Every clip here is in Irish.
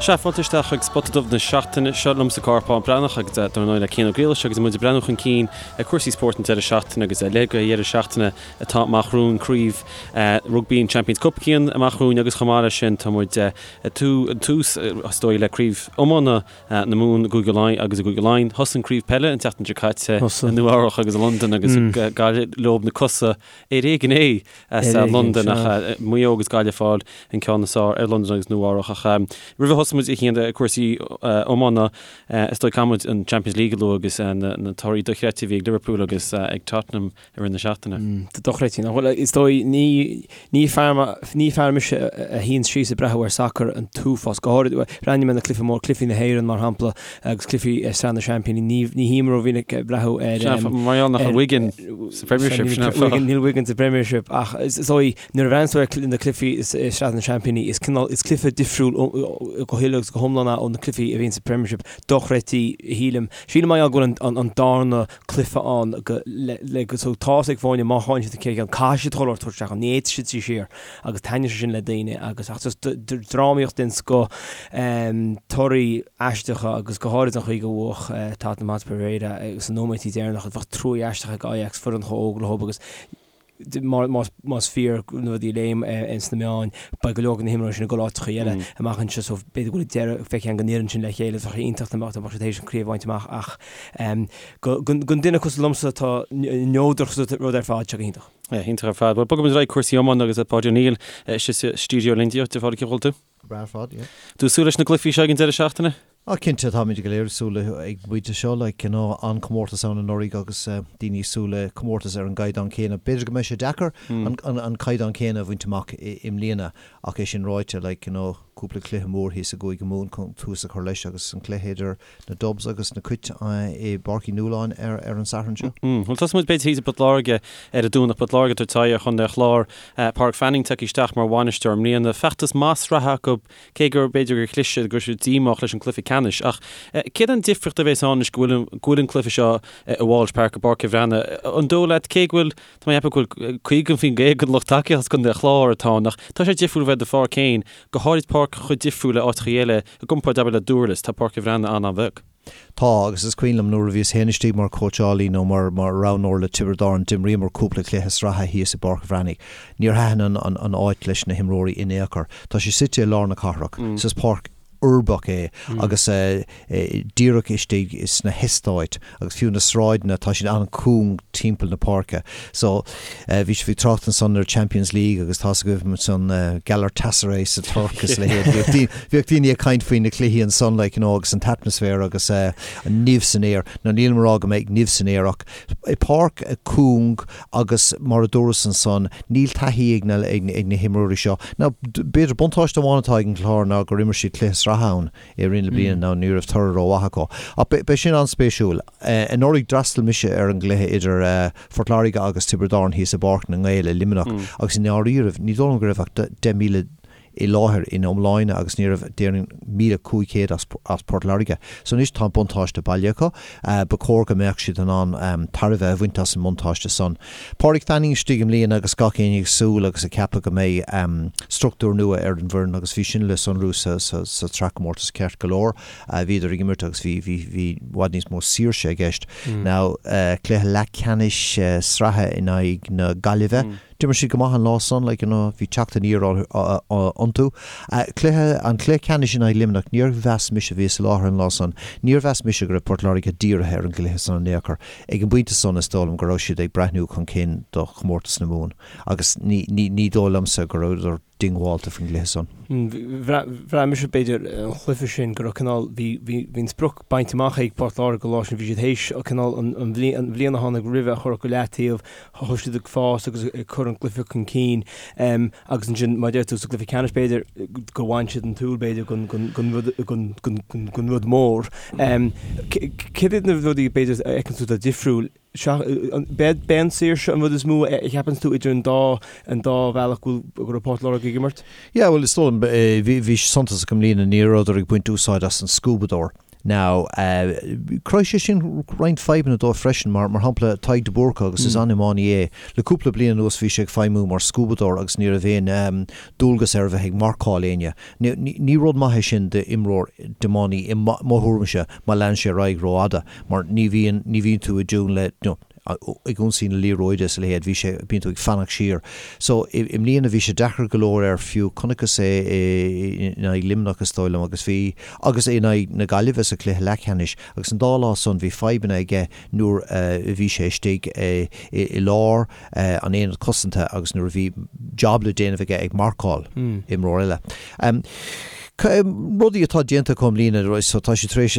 Sea, fáilte isteach chuig Spota Dubh na seachtaine seo liomsa Cárthach Bán Breathnach agus dar ndóigh le Cian Ó Griallais agus muid ag breathnú chun cinn ar cúrsaí spóirt an deireadh seachtaine agus le go dheireadh seachtaine atá amach romhainn craobh rugbaí an Champions Cup Cian amach romhainn agus chomh maith leis sin tá muid ag tús is dóigh le craobh iomána na Mumhan i gCúige Laighean agus i gCúige Laighean. Thosaigh an craobh peile an tseachtain seo caite i Nua Eabhrach agus i Londain agus Gaillimh leo na cosa ar éigean é as Londain ach Maigh Eo agus Gaillimh ag fáil an ceann is fearr ar Londain agus Nua Eabhrach ach roimh a thosóidh muid a Chian ar cúrsaí iomána is dóigh caithfidh muid an Champions League a lua agus na torthaí dochreidte a bhí ag Liverpool agus ag Tottenham i rith na seachtaine. Dochreidte, nach bhfuil? Is dóigh ní ní fear ní fear mise a shuíonn síos ag breathnú ar sacar an t-uafás, go háirid breathnaím ar na cluichí mór, cluichí na hÉireann mar shampla agus cluichí Sraith na Seaimpíní, ní ní shuím rómhinic ag breathnú ar Sea, mar gheall nach bhfuil Wigan sa Premiership, sin an fáth. Wigan, níl Wigan sa Premiership ach is dóigh nuair a bhreathnaíonn tú ar na cluichí i Sraith na Seaimpíní is cineál, is cluiche difriúil go huile agus go hiomlán é ó na cluichí a bhíonn sa Premiership. Dochreidte, shílim. Sílim mar gheall go bhfuil an darna cluiche ann go le le go so tá's ag foirne má tháinig siad an chéad cheann caithfidh siad chuile shórt a thabhairt isteach ann, ní fhéadfaidh siad suí siar agus taitníonn sé sin le daoine agus ach just drámaíocht den scoth, torthaí aisteacha agus go háirid an chaoi gur bhuaigh Tottenham Hotspur aréir sna nóiméidí deireanacha, bheadh trua aisteach ag Ajax foireann chomh óg leo agus más fíor na rudaí a léim sna meáin, beidh go leor de na himreoirí sin ag dul áiteacha eile amach anseo so b'fhéidir go bhfuil deireadh feicthe an fhoireann sin le chéile, bheadh sé iontach dá mbeadh siad théis an chraobh a bhaint amach ach don duine cosúil liomsa atá neodrach sa rud ar fad, seo go hiontach. Yeah, iontach ar fad. Bhuel, bogfaidh muid ar aghaidh cúrsaí iomána agus Páidí Ó Néill istigh sa stiúideo linn. Dia duit, a Pháidí, cén chaoi a bhfuil tú? Go breá ar fad, yeah. Tú ag súil leis na gcluichí seo ag an deireadh seachtaine? Ah cinnte, táimid go léir ag súil le ag an bpointe seo, like, you know, an-chomórtas ann anuraidh agus daoine ag súil le comórtas ar an gcaighdeán céanna. B'fhéidir go mbeidh sé deacair an, an, an caighdeán céanna a bhaint amach i, i mbliana ach é sin ráite, like, you know, cúpla cluiche mór thíos i gCúige Mumhan chun tús a chur leis agus an cluiche idir na Dubs agus na Cait i bPáirc Uí Nualláin ar, ar an Satharn seo. Bhuel, tosóidh muid b'fhéidir thíos i bPort Láirge ar an Domhnach. Port Láirge ag tabhairt aghaidh ar Chontae an Chláir. Pádraig Fanning tagtha isteach mar bhainisteoir i mbliana. Feachtas maith sraithe acu Cé gur b'fhéidir gur chlis siad, go raibh siad díomách leis an cluiche ceannais, ach céard an difríocht a bhéas ann anois go bhfuil, go bhfuil an cluiche seo i Walsh Park i bPáirc an Bhreathnaigh? An dóigh leat, cé go bhfuil, tá mé ag ceapadh go bhfuil 50% den lucht tacaíochta as Contae an Chláir atá ann, ach tá sé difriúil bheith i do pháirc féin, go háirid páirc chomh difriúil le áiteacha eile, i gcomparáid abair le Dúrlas, tá Páirc an Bhreathnaigh an-an-bheag. Tá, agus is cuimhin liom nuair a bhíos féin istigh mar chóitseálaí nó mar mar roghnóir le Tiobraid Árann, d'imríomar cúpla cluiche sraithe thíos i bPáirc an Bhreathnaigh. Níor thaitin an an an áit leis na himreoirí in aon chor. Tá sé suite i lár na cathrach, so is páirc uirbeach é agus díreach istigh sna heastáit agus fiú na sráideanna, tá siad an-chúng timpeall na páirce. So, bhí sibh ag trácht ansan ar Champions League agus tá's agaibh ansan Galatasaray sa Tuirc is a leithéid. Bhíodh daoine ag caint faoi na cluichí ansan like you know agus an t-atmaisféar agus an nimh san aer. Now nílim ag rá go mbeidh nimh san aer ach páirc cúng agus mar a dúras ansan níl taithí ag na ag na himreoirí seo. Now b'fhéidir buntáiste amháin atá ag an Chlár ná gur imir siad cluiche sraithe ann i rith na bliana now ní raibh toradh rómhaith acu. Ach beidh sin an-spéisiúil. Anuraidh d'fhreastail mise ar an gcluiche idir Phort Láirge agus Tiobraid Árann thíos i bPáirc na nGael i Luimneach agus i ndáiríribh ní dóigh liom go raibh ach 10,000 i láthair ina iomláine agus ní raibh déarfainn 1,500 as as Port Láirge. So anois tá an buntáiste baile acu. Ba chóir go mbeadh siad in ann tairbhe a bhaint as an mbuntáiste san. Pádraig Fanning istigh i mbliana agus gach éinne ag súil agus ag ceapadh go mbeidh struchtúr nua ar an bhfoireann agus bhí sin le sonrú sa sa sa tsraithchomórtas ceart go leor. Bhíodar ag imirt agus bhí bhí bhí i bhfad níos mó saoirse i gceist. Now cluiche leathcheannais sraithe in aghaidh na Gaillimhe. D'imir siad go maith an lá san, like, you know, bhí teacht aniar iontu. Cluiche, an cluiche ceannais in aghaidh Luimneach, níor mheas mise, bhíos i láthair an lá san, níor mheas mise go raibh Port Láirge dírithe ar an gcluiche san in aon chor. Ag an bpointe san, is dóigh liom go raibh siad ag breathnú chun cinn do chomórtas na Mumhan agus ní, ní, ní dóigh liomsa go rabhadar diongbháilte faoin gcluiche san. Bhraith mise, b'fhéidir, an chluiche sin go raibh cineál, bhí, bhí, bhí an sprioc bainte amach ag Port Láirge an lá sin, bhí siad théis cineál an, an bhliain, an bhliain a tháinig roimhe a chur go leataobh, thosaigh siad ag fás agus ag cur an gcluiche chun cinn agus ansin, mar a deir tú, sa gcluiche ceannais b'fhéidir gur bhain siad an tsúil b'fhéidir den, den, den rud, den, den, den rud mór. Céard iad na rudaí b'fhéidir a fheiceann tú atá difriúil? B'é an saoirse an rud is mó a cheapann tú idir an dá an dá bhealach go bhfuil go raibh Port Láirge ag imirt? Yeah, bhuel is dóigh liom, bhí, bhí sé suntasach i mbliana, ní rabhadar ag baint úsáid as an scuabadóir. Now, chruthaigh sé sin roinnt fadhbanna dóibh freisin, mar, mar shampla, Tadhg de Búrca, agus is an-iománaí é, le cúpla bliain anuas bhí sé ag feidhmiú mar scuabadóir agus ní raibh aon dualgas air a bheith ag marcáil éinne. Ní rud maith é sin d'imreoir, d'iománaí, i mo thuairimse, má leanann sé ar aghaidh rófhada, mar ní bhíonn, ní bhíonn tú i dtiún le, you know, ag ionsaí na liathróide is a leithéid, bhí sé, bíonn tú ag fanacht siar. So, i mbliana bhí sé deacair go leor air fiú, chonaiceas é in aghaidh Luimneach is dóigh liom agus bhí, agus in aghaidh na Gaillimhe sa chluiche leathcheannais agus an dá lá san bhí fadhbanna aige nuair a bhí sé istigh i lár an aonad cosanta agus nuair a bhí job le déanamh aige ag marcáil imreoir eile. Rudaí atá déanta acu i mbliana, so tá siad tar éis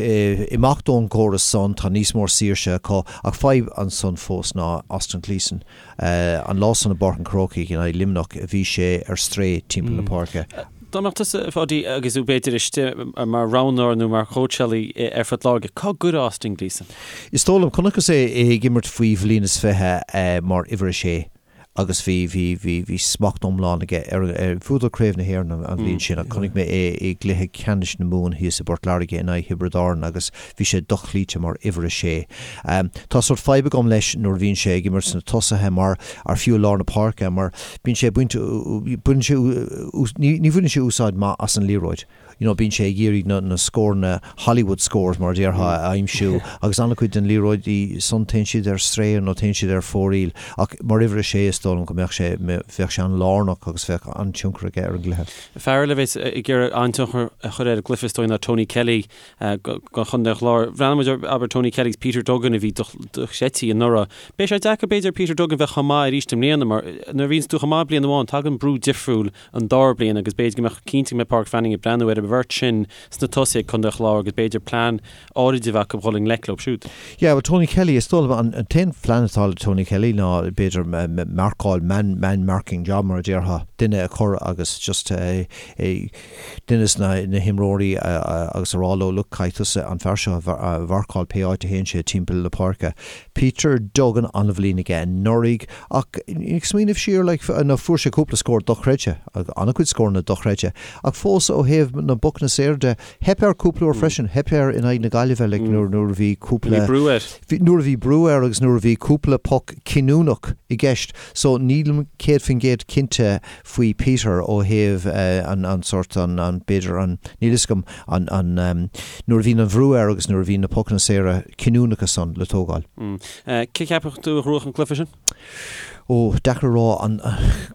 imeacht ón gcóras san, tá níos mó saoirse acu, ach fadhb ansan fós ná Austin Gleeson. An lá san i bPáirc an Chrócaigh in aghaidh Luimneach bhí sé ar strae timpeall na páirce. Dá mbeadh tusa, a Pháidí, agus tú b'fhéidir istigh mar roghnóir nó mar chóitseálaí ar Phort Láirge, cá gcuirfeá Austin Gleeson? Is dóigh liom, chonaiceas é ag imirt faoi bhliain is 20 mar uimhir a sé. agus bhí, bhí, bhí, bhí smacht iomlán aige ar, ar, bhuadar Craobh na hÉireann an, an bhliain sin ach chonaic mé é i gcluiche ceannais na Mumhan thíos i bPort Láirge in aghaidh Thiobraid Árann agus bhí sé dochloíte mar uimhir a sé. Tá sórt fadhb agam leis nuair a bhíonn sé ag imirt sna tosaithe mar, ar fiú i lár na páirce mar bíonn sé ag baint, baineann sé, ní, ní bhaineann sé úsáid maith as an liathróid. you know bíonn sé ag iarraidh na na scóranna Hollywood scores mar a déarfá a aimsiú agus an-chuid den liathróidí san téann siad ar strae nó téann siad ar fóraoil ach mar uimhir a sé is dóigh liom go mbeadh sé bheadh sé an-lárnach agus bheadh an-tionchar aige ar an gcluiche. Fear eile a bheas ag iarraidh an-tionchar a chur ar an gcluiche is dóigh ná Tony Kelly do Chontae an Chláir. Bhreathnaigh muid ar abair Tony Kelly agus Peter Duggan a bhí dochreidte anuraidh. Beidh sé deacair b'fhéidir ar Peter Duggan bheith chomh maith arís i mbliana mar nuair a bhíonns tú chomh maith bliain amháin tagann brú difriúil an dara bliain agus b'fhéidir go mbeadh cinnte go mbeidh Pádraic Fanning ag breathnú ar an bheirt sin sna tosaithe ag Contae an Chláir agus b'fhéidir plean áirid a bheith acu dhul i ngleic leo siúd. Yeah, well Tony Kelly, is dóigh liom an t-aon phlean atá le Tony Kelly ná b'fhéidir marcáil, man, man marking job mar a déarfá, duine a chur agus just duine de na himreoirí agus a rá leo look caithfidh tusa an fear seo a mharcáil pé áit a théann sé timpeall na páirce. Peter Duggan an-bhliain aige anuraidh ach ag smaoineamh siar like nó fuair sé cúpla scór dochreidte, an-chuid scóranna dochreidte ach fós ó thaobh na bpocanna saora de, theip air cúpla uair freisin, theip air in aghaidh na Gaillimhe like nuair nuair a bhí cúpla, Bhí brú air. bhí nuair a bhí brú air agus nuair a bhí cúpla poc cinniúnach i gceist so nílim 100% cinnte faoi Peter ó thaobh an an sórt an an b'fhéidir an níl fhios agam an an nuair a bhíonn an bhrú air agus nuair a bhíonn na pocanna saora cinniúnacha san le tógáil. Cé cheapfadh tú a ghnóthódh an cluiche sin? Ó, deacair a rá. An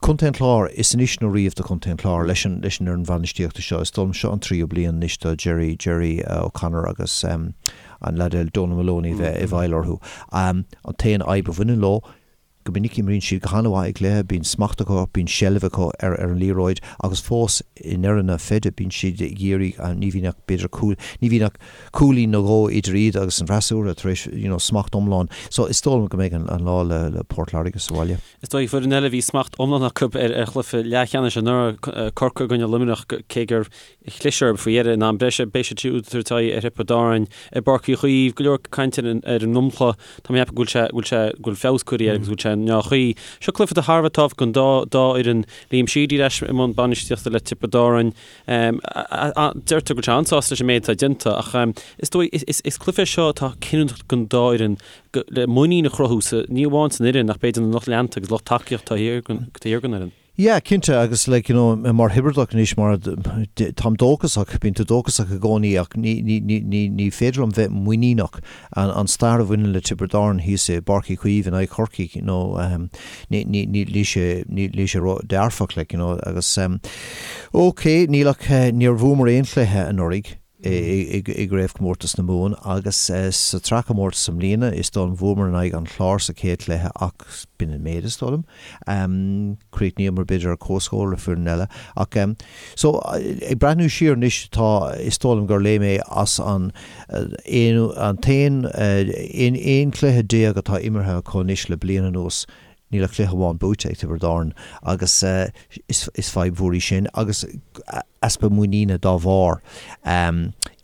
Contae an Chláir, is anois nó riamh do Chontae an Chláir leis an leis an fhoireann bhainistíochta seo. Is dóigh liom seo an tríú bliain anois do Gerry Gerry O'Connor agus an leaid eile Donal Moloney bheith i bhfeighil orthu. An t-aon fhadhb a bhaineann leo, Go minic imríonn siad go han-mhaith i gcluiche, bíonn smacht acu, bíonn seilbh acu ar an liathróid agus fós i ndeireadh na feide bíonn siad ag iarraidh, ní bhíonn ach b'fhéidir cúl, ní bhíonn ach cúilín nó dhó idir iad agus an freasúra tar éis you know smacht iomlán. So is dóigh liom go mbeidh an lá le le Port Láirge sa bhaile. Is dóigh foireann eile a bhí smacht iomlán acu ar ar chluiche leathcheannais anuraidh, Corcaigh i gcoinne Luimneach, cé gur chlis orthu faoi dheireadh in am breise. Beidh siad siúd ag tabhairt aghaidh ar Thiobraid Árann i bPáirc Uí Chaoimh. Go leor cainte ar an ar an ndromchla. Tá mé ag ceapadh go bhfuil sé go bhfuil sé go bhfuil feabhas curtha air agus go bhfuil sé i ndea-chaoi. Seo cluiche atá thar a bheith tábhachtach don dá dá fhoireann. Liam Sheedy ar ais i mbun bainistíochta le Tiobraid Árann. Deirtear go bhfuil sé an-sásta leis an méid atá déanta ach is dóigh is is is cluiche é seo atá cinniúnach don dá fhoireann go le muinín a chruthú sa ní amháin san fhoireann ach b'fhéidir na lucht leanta agus lucht tacaíochta taobh thiar den taobh thiar den fhoireann. Yeah, cinnte, agus like, you know, mar Thiobradach anois, mar, táim dóchasach, bíonn tú dóchasach i gcónaí ach ní, ní, ní, ní, ní féidir liom bheith muiníneach. An, an stair a bhaineann le Tiobraid Árann thíos i bPáirc Uí Chaoimh in aghaidh Chorcaigh, you know, um, ní, ní, ní, níl sé, ní, níl sé ró-dearfach, like, you know, agus, um, ok, níl ach, níor bhuamar aon chluiche anuraidh, i gCraobhchomórtas na Mumhan agus sa tsraithchomórtas i mbliana is dóigh liom bhuamar in aghaidh an Chláir sa chéad chluiche ach b'in an méid is dóigh liom. Chríochnaíomar b'fhéidir ar comhscór le foireann eile ach so ag breathnú siar anois tá is dóigh liom gur léigh mé as an aon an t-aon 11 cluiche atá imeartha acu anois le bliain anuas Níl ach cluiche amháin buaite ag Tiobraid Árann agus is fadhb mhór í sin agus easpa muiníne dá bharr.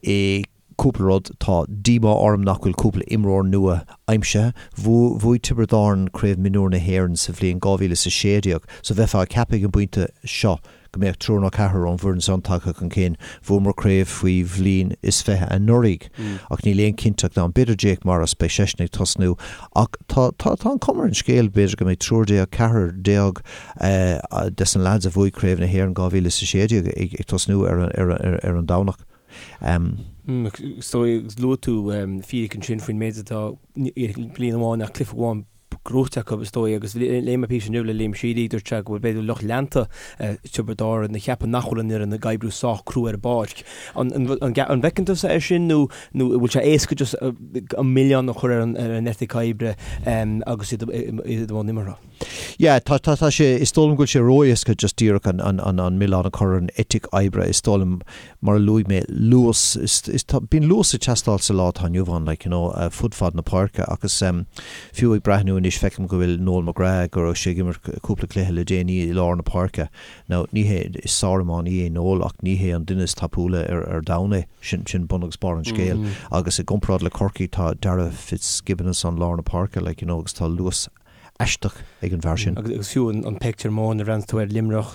I cúpla rud, tá díomá orm nach bhfuil cúpla imreoir nua aimsithe. Bhuaigh Tiobraid Árann Craobh Mionúr na hÉireann sa bhliain 2016 so bheifeá ag ceapadh ag an bpointe seo go. go mbeadh triúr nó ceathrar ón bhfoireann san tagtha chun cinn. Bhuamar craobh faoi bhliain is 20 anuraidh ach níl aon cinnteacht ann. B'fhéidir Jake Morris, beidh seisean ag tosnú ach tá tá tá an cuma ar an scéal b'fhéidir go mbeidh triúr déag, ceathrar déag des na lads a bhuaigh craobh na hÉireann 2016 ag ag tosnú ar ar ar an Domhnach. Is dóigh, luaigh tú fíric ansin faoin méid atá, bliain amháin ach cluiche amháin gnóthaithe acu, is dóigh, agus léigh mé píosa inniu le Liam Sheedy, dúirt sé go bhfuil b'fhéidir lucht leanta Tiobraid Árann ag ceapadh nach bhfuil an fhoireann ag oibriú sách crua ar an bpáirc. An bhfeiceann tusa é sin nó nó an bhfuil sé éasca just an milleán a chur ar an eitic oibre agus iad i mbun imeartha? Yeah, tá, tá, tá sé, is dóigh liom go bhfuil sé ró-éasca just díreach an, an, an, an milleán a chur ar an eitic oibre, is dóigh liom, mar a luaigh mé, luas, is, is, tá, bíonn luas ag teastáil sa lá atá inniu ann, like, you know, fud fad na páirce agus fiú ag breathnú anois feicim go bhfuil Noel McGrath, go raibh sé ag imirt cúpla cluiche le déanaí i lár na páirce. Now, ní hé, is sár-iománaí é Noel ach ní hé an duine is tapúla ar, ar domhan é, sin, sin bun agus barr an scéil agus i gcomparáid le Corcaigh tá Darragh Fitzgibbon ansan lár na páirce, like, you know, agus tá luas aisteach ag an bhfear sin. Agus fiú an pictiúr mór nuair a bhreathnaíonn tú ar Luimneach,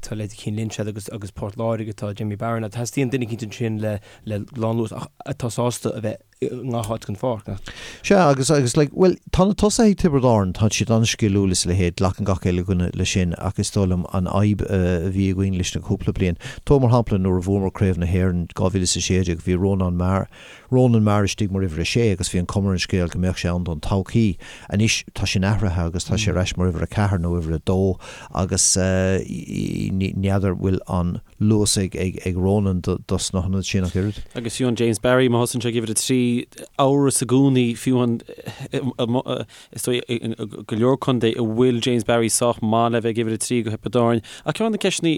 tá leithéidí Cian Lynch agat agus agus Port Láirge, tá Jimmy Barron, teastaíonn duine eicínt ansin le le lánluas ach atá sásta a bheith i ngach áit den pháirc, nach? Sea, agus agus like, bhuel, tá na tosaithe ag Tiobraid Árann, tá siad an-sciliúil is a leithéid, glacann gach uile dhuine leis sin ach is dóigh liom an fhadhb a bhí againn leis na cúpla bliain, tóg mar shampla nuair a bhuamar Craobh na hÉireann 2016, bhí Rónán Maher, Ronan Maher istigh mar uimhir a sé agus bhí an cuma ar an scéal go mbeadh sé ann don todhchaí. Anois tá sin athraithe agus tá sé ar ais mar uimhir a ceathair nó uimhir a dó agus n'fheadar bhfuil an luas ag Ronan dos na hionaid sin ach oiread. Agus fiú an James Barry má thosaíonn sé ag uimhir a 3, amhras i gcónaí fiú an is dóigh i go leor contae an bhfuil James Barry sách maith le bheith ag uimhir a 3 do Thiobraid Árann. Ach ceann de na ceisteanna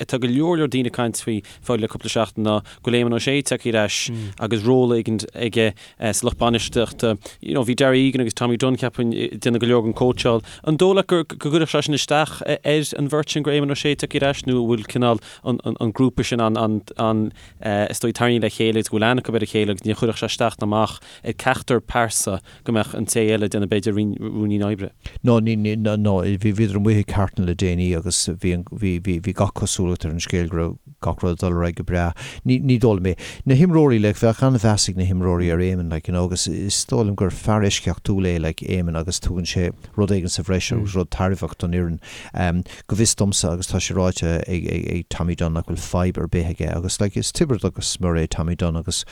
atá go leor leor daoine ag caint faoi fáil le cúpla seachtain ná go bhfuil Éamon Ó Sé tagtha ar ais agus ról éigin aige sa lucht bainistíochta. You know, bhí Darragh Egan agus Tommy Dunne cheapfainn ag déanamh go leor den cóitseáil. An dóigh leat go gcuirfeadh sé sin isteach ar an bheirt sin go raibh Éamon Ó Sé tagtha ar ais nó an bhfuil cineál an grúpa sin an an is dóigh tarraingthe le chéile agus go bhfuil aithne acu ar a chéile agus ní chuirfeadh sé isteach ná amach ar ceachtar pearsa go mbeadh an té eile ag déanamh b'fhéidir ruainnín oibre. No, ní, ní, no, no, bhí, bhíodar amuigh i Carton le déanaí agus bhí an, bhí, bhí, bhí gach cosúlacht ar an scéal go raibh gach rud ag dul ar aghaidh go breá. Ní, ní dóigh liom é. Na himreoirí, like, bheadh an-mheas ag na himreoirí ar Éamon, like, you know, agus is dóigh liom gur fear eisceachtúil é, like, Éamon agus tugann sé rud éigin sa bhreis agus rud tairbheach don fhoireann. Um, go bhfios domsa agus tá sé ráite ag, ag, ag Tommy Dunne nach bhfuil fadhb ar bith aige agus, like, is Tiobradach go smior é Tommy Dunne agus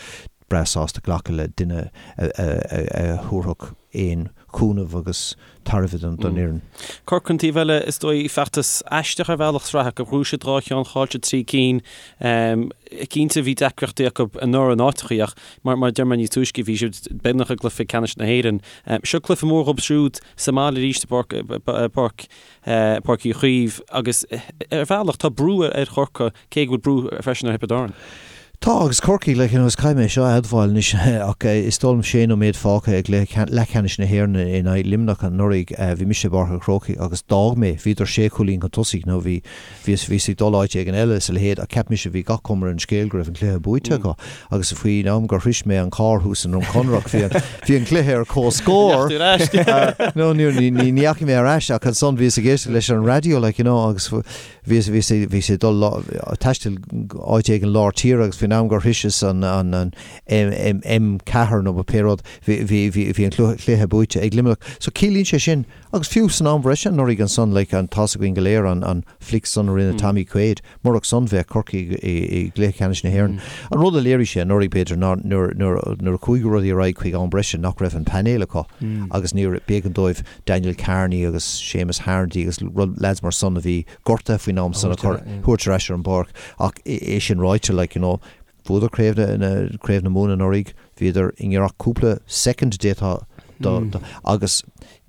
breá sásta glacadh le duine a thabharfadh aon chúnamh agus tairbhe don fhoireann. Corcaigh an taobh eile, is dóigh, feachtas aisteach ar bhealach sraithe acu. Bhuaigh siad 2 cheann, chaill siad 3 cinn. Cinnte bhí deacrachtaí acu anuraidh in áiteachaí ach mar a deir mé níos túisce bhí siad beagnach i gcluiche ceannais na hÉireann. Seo cluiche mór dhóibh siúd sa mbaile arís i bPáirc Páirc Uí Chaoimh agus ar bhealach tá brú ar Chorcaigh cé go bhfuil brú freisin ar Thiobraid Árann. Tá, agus Corcaigh, like, you know, is caithfidh mé seo a admháil anois ach is dóigh liom sé nóiméad fágtha i gcluiche leathcheannais na hÉireann in aghaidh Luimneach anuraidh, bhí mise i bPáirc an Chrócaigh agus d'fhág mé, bhíodar sé chúilín chun tosaigh nó bhí, bhíos, bhíos ag dul áit éigin eile is a leithéid ach cheap mise bhí gach cuma ar an scéal go raibh an cluiche buaite acu agus faoin am gur shrois mé an carr thuas i nDroim Conrach bhí an, bhí an cluiche ar comhscór. No, ní, ní, ní dheachaigh mé ar ais ach ansan bhíos ag éisteacht leis an raidió like, you know, agus Bhíos, bhíos, bhíos ag dul taisteal áit éigin lár tíre agus faoin am gur shroiseas an, an, an M, M, M4 nó pé rud, bhí, bhí, bhí, bhí an cluiche buaite ag Luimneach. So ciallaíonn sé sin, agus fiú san am bhreise anuraidh ansan, like, an, tá's againn go léir an, an flic san a rinne Tommy Quaid, murach san bheadh Corcaigh i, i gcluiche ceannais na hÉireann. An rud a léirigh sé anuraidh b'fhéidir ná nuair, nuair, nuair a chuaigh rudaí ar aghaidh chuig am breise nach raibh an painéal acu agus níor, b'éigean dóibh Daniel Kearney agus Séamus Harnedy agus lads mar san a bhí gortaithe faoin am san a chur, thabhairt ar ais ar an bpáirc. Ach é sin ráite, like, you know, bhuadar craobh na, craobh na Mumhan anuraidh, bhíodar i ngiorracht cúpla soicind d'fhéadfá do, do, agus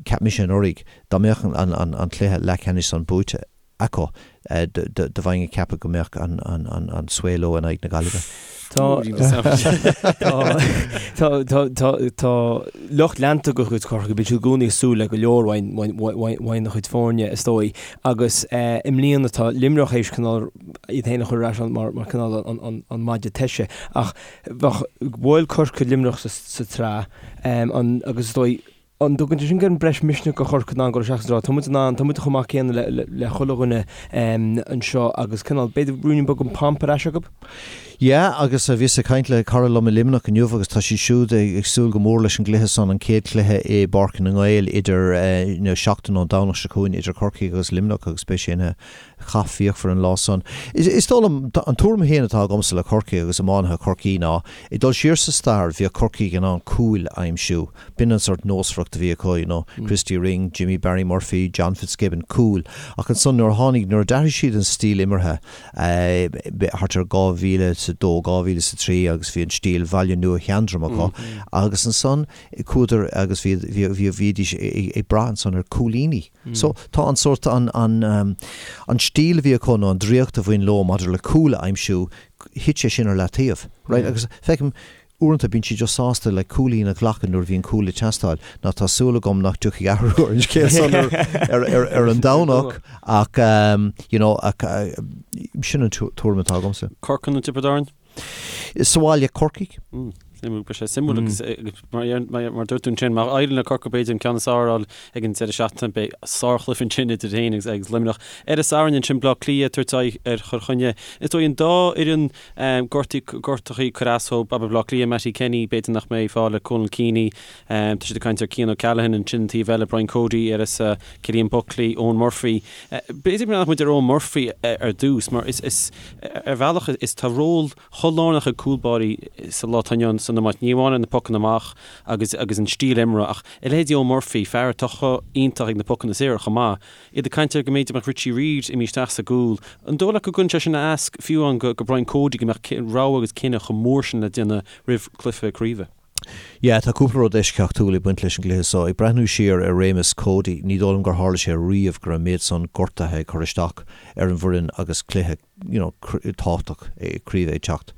cheap mise anuraidh, dá mbeadh an, an, an cluiche leathcheannais san buaite acu, do bheinn ag ceapadh go mbeadh an svae leo in aghaidh na Gaillimhe. Tá Tá lucht leanta de chuid Chorcaí, bíonn siad i gcónaí ag súil le go leor uaidh a chuid foirne, is dóigh, agus i mbliana tá Luimneach théis cineál iad féin a chur ar ais mar cineál an maide toise. Ach bheadh bhuail Corcaigh Luimneach sa tsraith agus is dóigh. An dtugann sé sin gan breis misnigh do Chorcaigh in ann dul isteach sa rá, tá muid in ann, tá muid chomh maith céanna le le chuile dhuine anseo agus cineál, b'fhéidir ruainnín beag den pomp ar ais acu? Yeah, agus bhíos ag caint le cara liom i Luimneach inniu agus tá siad siúd ag súil go mór leis an gcluiche san, an chéad chluiche i bPáirc na nGael idir, you know, seachtain ón Domhnach seo chugainn idir Corcaigh agus Luimneach agus beidh sé ina chath fíochmhar an lá san. Is dóigh liom, an tuairim féin atá agamsa le Corcaigh agus iománaithe Chorcaí ná, ag dul siar sa stair, bhíodh Corcaigh in ann cúil a aimsiú. B'in an sort nósmhaireacht a bhí acu, you know, Christy Ring, Jimmy Barry Murphy, John Fitzgibbon, cúil. Ach ansan nuair a tháinig, nuair a d'athraigh siad an stíl imeartha, thart ar 2002, 2003 agus bhí an stíl Bhaile Nua Sheandram acu agus ansan chuadar agus bhí, bhí, bhídís ag brath ansan ar cúilíní. So, tá an sórt, an, an, an stíl a bhí acu nó an draíocht a bhain leo maidir le cúl a aimsiú, thit sé sin ar leataobh, right? Agus feicim, uaireanta bíonn siad just sásta le cúilín a ghlacadh nuair a bhíonn cúl ag teastáil. Now tá súil agam nach dtiocfaidh athrú ar an scéal san ar, ar, ar, ar an Domhnach ach, you know, ach sin an tuairim atá agamsa. Corcaigh nó Tiobraid Árann? Sa bhaile, Corcaigh. Suimiúil, beidh sé suimiúil agus mar dúirt tú ansin, má éiríonn le Corcaigh b'fhéidir an ceann is fearr a fháil ag an deireadh seachtaine, beidh sárchluiche ansin idir féin agus agus Luimneach. Ar an Satharn ansin, Bleá Cliath ag tabhairt aghaidh ar Chill Chainnigh. Is dóigh an dá fhoireann gortaí gortachaí ag cur as dóibh, abair Bleá Cliath, Mattie Kenny, b'fhéidir nach mbeidh fáil ar Conal Keaney, tá siad ag caint ar Cian O'Callaghan ansin an taobh eile, Brian Cody ar is Cillian Buckley, Eoin Murphy. B'fhéidir go mbreathnódh muid ar Eoin Murphy ar dtús mar is is Ar bhealach, is tá ról chomh lárnach ag cúlbáirí sa lá atá inniu ann san iomáint, ní amháin ar na pocanna amach agus agus an stíl imeartha, ach a leithéidí Eoin Murphy, fear atá chomh iontach ag na pocanna saora chomh maith. Iad ag caint ar go mb'fhéidir mbeadh Richie Reid imithe isteach sa gcúl. An dóigh leat go gcuireann sé sin as fiú amháin go Brian Cody go mbeadh rogha agus cinneadh chomh mór sin le déanamh roimh chluiche craoibhe? Yeah, tá cúpla rud eisceachtúil ag baint leis an gcluiche seo. Ag breathnú siar ar réimeas Cody, ní dóigh liom gur tharla sé riamh go raibh an méid san gortaithe ag cur isteach ar an bhfoireann agus cluiche, you know, tábhachtach craoibhe ag teacht.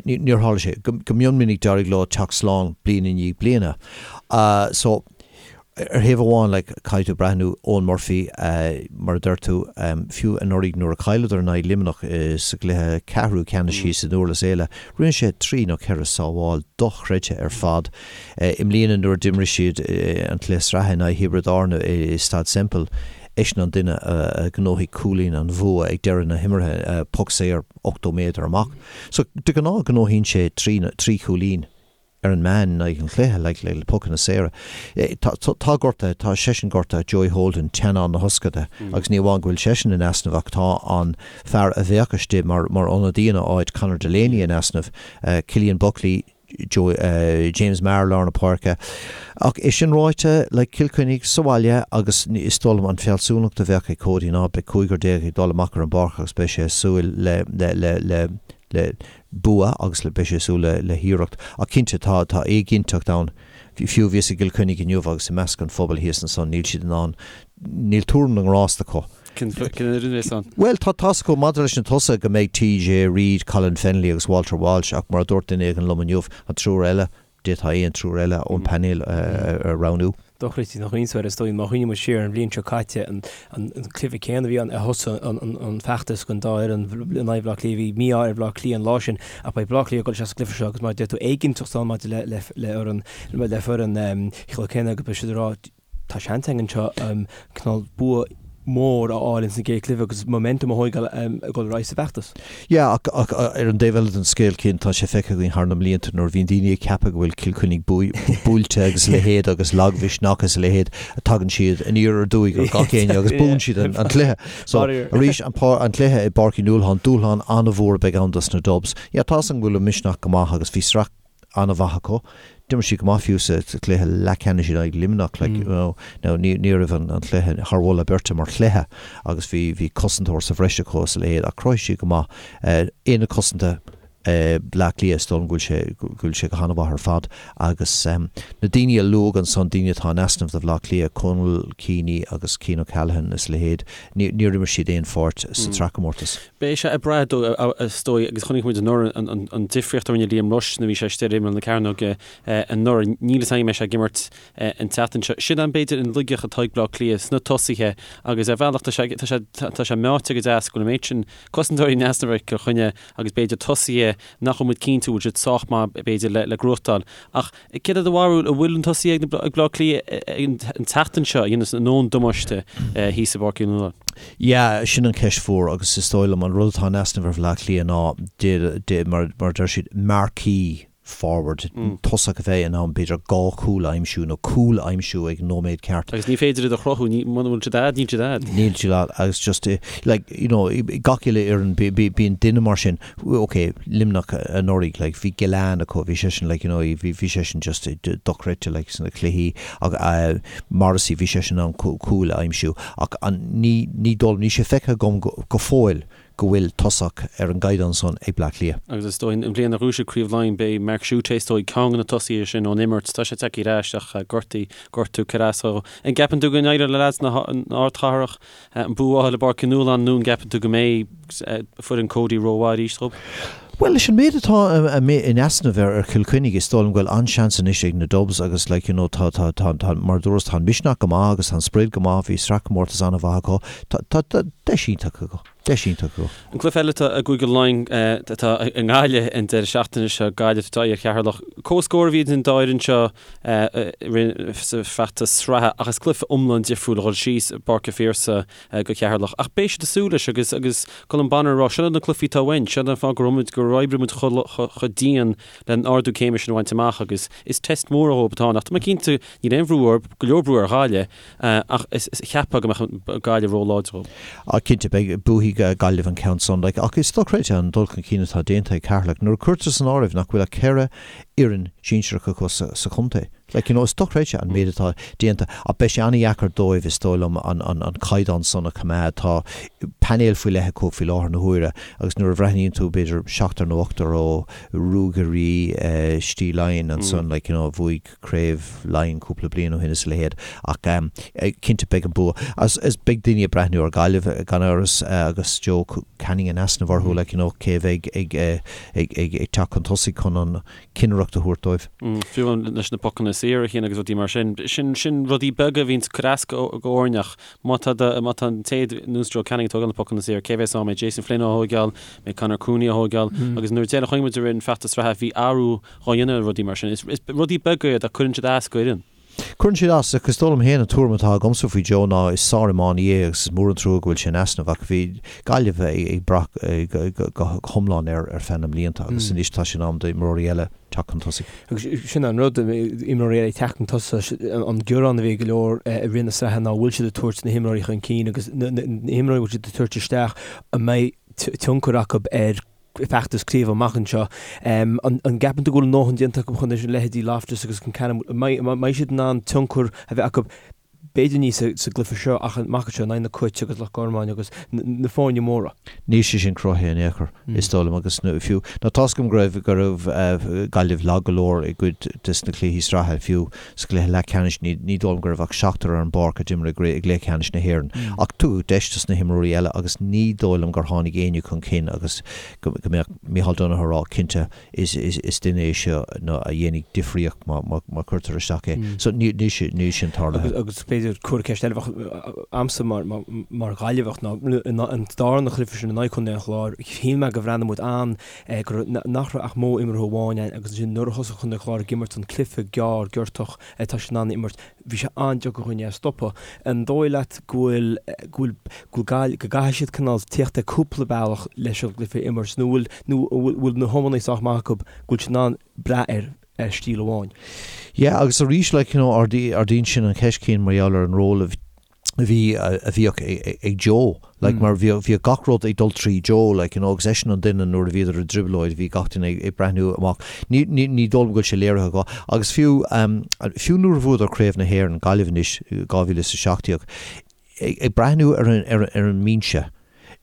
Níor tharla sé. Go mion minic d'éirigh leo teacht slán bliain i ndiaidh bliana. So, Ar thaobh amháin, like, caithfidh tú breathnú, Eoin Murphy, mar a deir tú, fiú anuraidh nuair a chailleadar in aghaidh Luimneach sa gcluiche ceathrú ceannais thíos i nDurlas Éile, rinne sé trí nó ceithre sábháil dochreidte ar fad. I mbliana nuair a d'imir siad an cluiche sraithe in aghaidh Thiobraid Árann i Staid Semple, eisean an duine a ghnóthaigh cúilín an bhua ag deireadh na himeartha, poc saor 80 méadar amach. So, de ghnáth gnóthaíonn sé trí chúilín. ar an meán in aghaidh an chluiche, like, le pocanna saora. Tá, tá gortaithe, tá seisean gortaithe, Joey Holden, teannán na hioscaide, agus ní amháin go bhfuil seisean in easnamh ach tá an fear a bheadh istigh mar, mar ionadaí ina áit, Conor Delaney, in easnamh, Cillian Buckley, Joe, James Maher lár na páirce. Ach é sin ráite, like, Cill Chainnigh sa bhaile agus is dóigh liom an fealsúnacht a bheadh ag Cody ná beidh cúigear déag ag dul amach ar an bpáirc agus beidh sé ag súil le, le, le, le, le bua agus le beidh sé ag súil le le hiarracht. Ach cinnte tá tá éiginnteacht ann. Fiú bhíos i gCill Chainnigh inniu agus i measc an phobail thíos ansan níl siad in ann níl tuairim na ngrást acu. Cén fhoireann é san? Bhuel tá tá's acu maidir leis na tosaithe go mbeidh TJ Reid, Colin Fennelly agus Walter Walsh ach mar a dúirt duine éigin liom inniu an triúr eile D'fhéadfá aon triúr eile ón bpainéal a roghnú. Dochreidte nach iontas is dóigh má chuimhníonn muid siar ar an bhliain seo caite, an cluiche céanna a bhí ann a thosaigh an feachtas don dá fhoireann in aghaidh Bhaile Átha Cliath. Bhí mí-ádh ar Bhaile Átha Cliath an lá sin ach beidh Baile Átha Cliath ag dul isteach sa gcluiche seo agus mar a deir tú éiginnteacht ann maidir le le le foireann Chill Chainnigh agus beidh siad ag rá Tá seans againn anseo cineál bua mór a fháil ins an gcéad chluiche agus momentum a thóigeáil ag dul ar aghaidh sa bhfeachtas. Yeah, ach ach ar an dtaobh eile den scéal Cian, tá sé feicthe againn thar na mblianta nuair a bhíonn daoine ag ceapadh go bhfuil Cill Chainnigh buailte agus a leithéid agus lagmhisneach agus a leithéid, tagann siad aniar aduaidh ar gach éinne agus buann siad an an cluiche. So arís an an cluiche i bPáirc Uí Nualláin, dúshlán an-mhór a bheidh ann dos na Dubs. Yeah, tá's agam go bhfuil an misneach go maith agus bhí sraith an-mhaith acu. D'imir siad go maith fiú sa chluiche leathcheannais in aghaidh Luimneach like you know. Now ní ní raibh an an cluiche thar mholadh beirte mar chluiche agus bhí bhí cosantóir sa bhreis acu is a leithéid ach chruthaigh siad go maith. Aonad cosanta Bhleá Cliath is dóigh liom go bhfuil sé go bhfuil sé go han-mhaith ar fad agus na daoine a luadh ansan daoine atá in easnamh do Bhleá Cliath, Conal Keaney agus Cian O'Callaghan is a leithéid ní níor imir siad aon pháirt sa tsraithchomórtas. Beidh sé ag brath is dóigh, agus chonaic muid anuraidh an difríocht a rinne Liam Rushe nuair a bhí sé istigh ar imeall na cearnóige anuraidh. Níl fhios agam an mbeidh sé ag imirt an tseachtain seo. Sin an, b'fhéidir, an laigeacht atá ag Bleá Cliath sna tosaithe agus ar bhealach tá sé, tá sé, tá sé meáite go deas go bhfuil an méid sin cosantóirí in easnamh ar Chill Chainnigh agus b'fhéidir tosaithe. Cliath nach bhfuil muid cinnte an bhfuil siad sách maith b'fhéidir le gnóthachtáil. Ach céard é do bharúil, an bhfuil an tosaí ag Baile Átha Cliath an tseachtain seo a dhéanfas a ndóthain damáiste thíos i bPáirc Uí Nualláin? Yeah, sin an cheist mhór agus is dóigh liom an rud atá in easnamh ar Bhaile Átha Cliath ná, mar a deir siad, marquee forward, tosach a bheidh in ann b'fhéidir dhá chúl a aimsiú nó cúl a aimsiú ag an nóiméad ceart. Agus ní féidir iad a chruthú, muna bhfuil siad a'd, níl siad a'd. Níl siad a'd agus just like, you know, gach uile fhoireann bíonn duine mar sin, ok, Luimneach anuraidh, like, bhí Gillane acu, bhí seisean like, you know, bhí seisean just dochreidte like sna cluichí ach Morrissey, bhí seisean in ann cúil a aimsiú ach an, ní, ní dóigh liom, níl sé feicthe agam go fóill go bhfuil tosach ar an gcaighdeán san ag Bleá Cliath. Agus is dóigh, an bhliain a ghnóthaigh siad Craobh Laighean, b'é Mark Schutte is dóigh ceann de na tosaithe sin ón imirt. Tá sé tagtha ar ais ach gortaí, gortú ag cur as dó. An gceapann tú go n-éireoidh le leaids na hardchathrach an bua a fháil i bPáirc Uí Nualláin nó an gceapann tú go mbeidh foireann Cody rómhaith arís dóibh? Bhuel, leis an méid atá in easnamh ar Chill Chainnigh, is dóigh liom go bhfuil an-seans anois ag na Dubs agus like you know tá, tá, tá, tá, mar a dúras, tá an misneach go maith agus tá an sprid go maith, bhí sraithchomórtas an-mhaith acu, tá, tá, tá deis iontach acu, deis iontach acu. An cluiche eile atá i gCúige Laighean atá i nGaillimh an deireadh seachtaine seo, Gaillimh ag tabhairt aghaidh ar Cheatharlach. Comhscór a bhí idir an dá fhoireann seo sa bhfeachtas sraithe ach is cluiche iomlán difriúil a dhul síos i bPáirc an Phiarsaigh go Ceatharlach. Ach beidh siad ag súil leis agus agus Colm Bonnar ag rá, seo na cluichí atá uainn, seo an fáth go raibh muid, gur oibrigh muid chomh dian le an ardú céime sin a bhaint amach agus is test mór dhóibh atá ann. Ach tá mé cinnte, níl aon bhrú orthu, go leor brú ar Ghaillimh ach is cheapfá go mbeadh Gaillimh róláidir dhóibh. Ah cinnte, beidh, buafaidh Gaillimh an ceann san. Like, ach is dochreidte an dul chun cinn atá déanta ag Ceatharlach nuair a cuirtear san áireamh nach bhfuil ach 4 fhoireann sinsearach acu sa chontae. Like, you know, is dochreidte an méid atá déanta ach beidh sé an-dheacair dóibh, is dóigh liom, an, an, an caighdeán san a choimeád. Tá painéal faoi leith acu faoi láthair na huaire agus nuair a bhreathnaíonn tú b'fhéidir seachtar nó ochtar ó Ruagairí Stíl Laighean ansan, like, you know, a bhuaigh Craobh Laighean cúpla bliain ó shin is a leithéid ach cinnte beidh an bua. Agus is beidh daoine ag breathnú ar Ghaillimh gan amhras agus Joe Canning in easnamh orthu, like, you know, cé a bheidh ag, ag, ag, ag teacht chun tosaigh chun an cinnireacht a thabhairt dóibh. Fiú amháin leis na pocanna saora a Chian agus rudaí mar sin. Sin, sin rudaí beaga a bhíonns ag cur as go fhoirne ach má tá do, má tá an té ar nós Joe Canning ag tógáil na pocanna saora, cé bheas ann? Mbeidh Jason Flynn á thóigeáil, mbeidh Conor Cooney á thóigeáil agus nuair a deireadh chonaic muid i rith an feachtas sraithe bhí athrú dhá dhéanamh ar rudaí mar sin. Is, is rudaí beaga iad ach cuireann siad as go fhoireann. Cuireann siad as, ach is dóigh liom féin an tuairim atá agamsa faoi Joe ná is sár-iománaí é agus is mór an trua go bhfuil sé in easnamh ach bhí Gaillimh ag brath go hiomlán air ar feadh na mblianta agus anois tá sé in am d'imreoirí eile teacht chun tosaigh. Agus sin an rud, imreoirí eile ag teacht chun tosaigh, an gearán a bhí ag go leor i rith na sraithe ná bhfuil siad ag tabhairt na himreoirí chun cinn agus na himreoirí a bhfuil siad ag tabhairt isteach an mbeidh tionchar acu ar feachtas craoibhe amach anseo. An gceapann tú go bhfuil a ndóthain déanta acu chun leithéidí Loftus agus Concannon, an mbeidh siad in ann tionchar a bheith acu b'fhéidir ní sa gcluiche seo ach amach anseo in aghaidh na Cait agus Loch Garman agus na foirne móra? Níl sé sin cruthaithe in aon chor, is dóigh liom, agus fiú, nó tá's agam go raibh, go raibh Gaillimh lag go leor i gcuid des na cluichí sraithe, fiú sa gcluiche leathcheannais, ní dóigh liom go raibh ach seachtar ar an bpáirc a d'imir i gcluiche ceannais na hÉireann. Ach tugadh deis dos na himreoirí eile agus ní dóigh liom gur tháinig éinne chun cinn agus go mbeadh Micheál Donoghue ag rá, cinnte, is duine é seo a dhéanfaidh difríocht má chuirtear isteach é. So níl sin tarlaithe. Agus b'fhéidir cúpla ceist eile a bheadh a'msa mar Ghaillimheach ná an darna chluiche sin in aghaidh Chontae an Chláir, shíl mé go bhreathnaigh muid an go raibh, nach raibh ach modh imeartha amháin ann agus ansin nuair a thosaigh Contae an Chláir ag imirt an cluiche gearr giortach atá siad in ann a imirt, bhí sé an-deacair dhúinn é a stopadh. An dóigh leat go bhfuil, go bhfuil, go bhfuil Gaillimh, go gcaithfidh siad cineál tíocht ar cúpla bealach leis an gcluiche a imirt nó bhfuil, nó an bhfuil na hiománaithe sách maith acu go bhfuil siad in ann brath ar, ar stíl amháin? Yeah agus arís like you know ardaíonn sin an cheist Cian mar gheall ar an ról a bhí, a bhí, a bhíodh ag Joe, like mar bhíodh, bhíodh gach rud ag dul trí Joe, like, you know, agus eisean an duine nuair a bhíodar i dtrioblóid, bhí gach duine ag breathnú amach. Ní, ní, ní dóigh liom go bhfuil sé léirithe acu. Agus fiú, fiú nuair a bhuadar Craobh na hÉireann, Gaillimh anois, 2017, ag, ag breathnú ar an, ar an, ar an mbinse,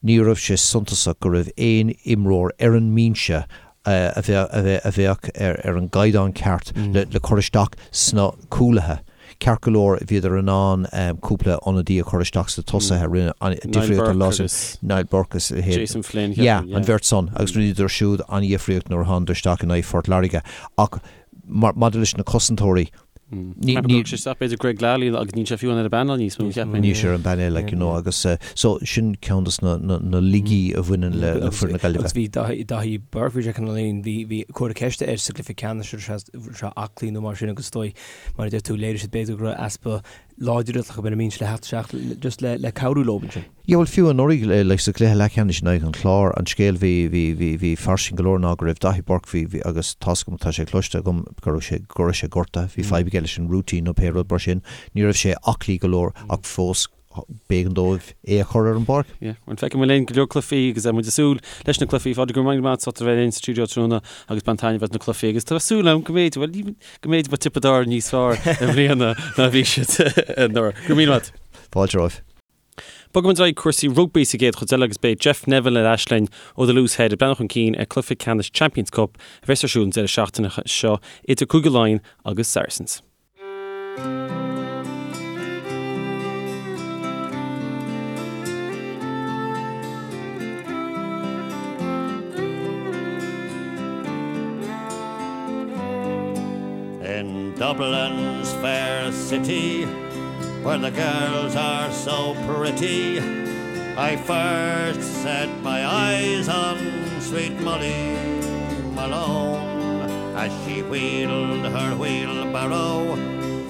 ní raibh sé suntasach go raibh aon imreoir ar an mbinse a bheadh ar an gcaighdeán ceart le cur isteach sna cúlaithe. Ceart go leor, bhíodar in ann cúpla ionadaí a chur isteach sna tosaithe, rinne an-difríocht an lá sin, Niall Burke agus a leithéid. Jason Flynn, Yeah, an bheirt san, agus rinneadar siúd an-dhifríocht nuair a thánadar isteach in aghaidh Phort Láirge. Ach maidir leis na cosantóirí, Ní sé isteach b'fhéidir Greg Lally agus níl sé fiú ar an bpainéal níos mó, cheapfainn. Níl sé ar an bpainéal, like, you know, agus so sin ceann de na laigí a bhaineann le foireann na Gaillimhe. Agus bhí Daithí Burke, bhí sé cineál bhí bhí comhartha ceiste air sa gcluiche ceannais an raibh sé aclaí nó mar sin agus is dóigh, mar a deir tú, léirigh siad b'fhéidir go raibh easpa láidreacht acu ar an mbinse le theacht isteach just le le cabhrú leo ansin. Yeah bhuel fiú anuraidh like sa gcluiche leathcheannais in aghaidh an Chláir an scéal bhí bhí bhí bhí fairsing go leor ná go raibh Daithí Burke bhí bhí agus tá's agam tá sé cloiste agam go raibh sé go raibh sé gortaithe bhí fadhb aige leis an rúitín nó pé rud mar sin ní raibh sé aclaí go leor ach fós b'éigean dóibh é a chur ar an bpáirc. Yeah bhuel feicfidh muid linn go leor cluichí agus muid ag súil leis na cluichí Phádraig go raibh míle maith agat as ucht a bheith linn sa stiúideo tráthnóna agus bain taitneamh as na cluichí agus tá súil agam go mb'fhéidir bhuel ní go mb'fhéidir beidh Tiobraid Árann níos fearr i mbliana ná bhí siad anuraidh. Go raibh míle maith agat. Fáilte romhaibh. Bogfaidh muid ar aghaidh cúrsaí rugbaí sa gcéad chuid eile agus beidh Jeff Neville ar ais linn ó The Loose Head ag breathnú chun cinn ar cluiche ceannais Champions Cup a bheas ar siúl an deireadh seachtaine seo idir Cúige Laighean agus Saracens. In Dublin's fair city Where the girls are so pretty I first set my eyes on sweet Molly Malone As she wheeled her wheelbarrow